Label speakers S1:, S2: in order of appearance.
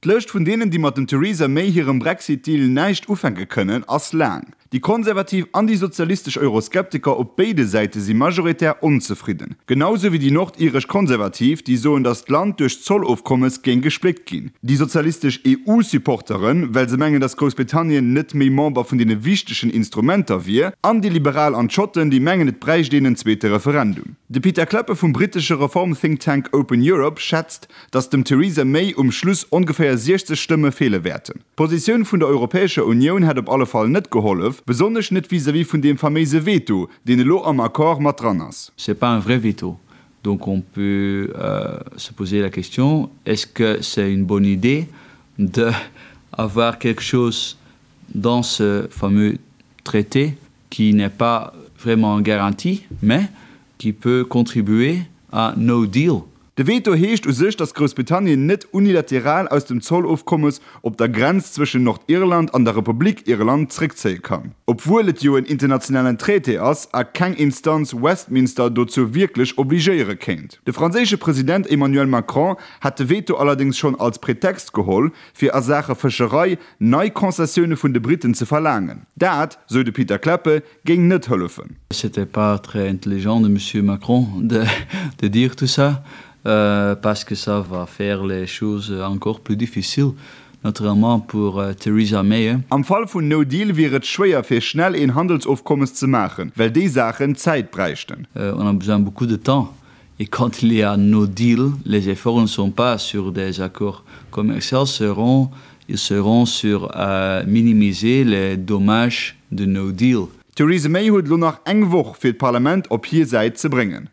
S1: D'Lëscht vun deenen, déi mat dem Theresa May hirem Brexit-Deal näischt ufänke kënnen, ass laang. Déi konservativ an déi sozialistesch Euroskeptiker op béide Säite si majoritär onzefridden. Genau sou wéi déi nordiresch Konservativ, déi soen, datt d'Land duerch d'Zollofkommes géing gespléckt ginn. Déi sozialistesch EU-Supporteren, well se mengen, datt Groussbritannien net méi Member vun deene wichtegen Instrumenter wier. An déi Liberal an d'Schotten, déi mengen, et bräicht een en zweete Referendum. De Pieter Cleppe vum brittesche Reform-Think Tank Open Europe schätzt, datt dem Theresa May um Schluss ongeféier 60 Stëmme feele wäerten. D'Positioun vun der Europäescher Unioun hätt op alle Fall net gehollef, besonnesch net vis-à-vis vun deem faméise Veto, deen elo am Accord mat dran ass.
S2: C'est pas un vrai veto. Donc on peut se poser la question, est-ce que c'est une bonne idée de avoir quelque chose dans ce fameux traité qui n'est pas vraiment garanti, mais qui peut contribuer à no deal?
S1: De Veto heescht u sech, datt Groussbritannien net unilateral aus dem Zollofkommes op der Grenz zwëschen Nordirland an der Republik Irland zréckzéie kann. Obwuel et jo en internationalen Traité ass a keng Instanz Westminster dozou wierklech obligéiere kéint. De franséische President Emmanuel Macron hat de Veto allerdéngs schonn als Pretext geholl, fir a Saache Fëscherei nei Concessioune vun de Briten ze verlaangen. Dat, sou de Pieter Cleppe, géing net hëllefen.
S2: C'était pas très intelligent de monsieur Macron de de dire tout ça parce que ça va faire les choses encore plus difficiles naturellement pour Theresa May.
S1: Am Fall vun No Deal wier et schwéier fir schnell een Handelsofkommes ze maachen, well déi Saachen Zäit bräichten.
S2: On a besoin beaucoup de temps et quand il y a no deal, les efforts ne sont pas sur des accords commerciaux seront ils seront sur minimiser les dommages de no deal.
S1: D'Theresa May huet elo nach eng Woch fir d'Parlament op hir Säit ze bréngen.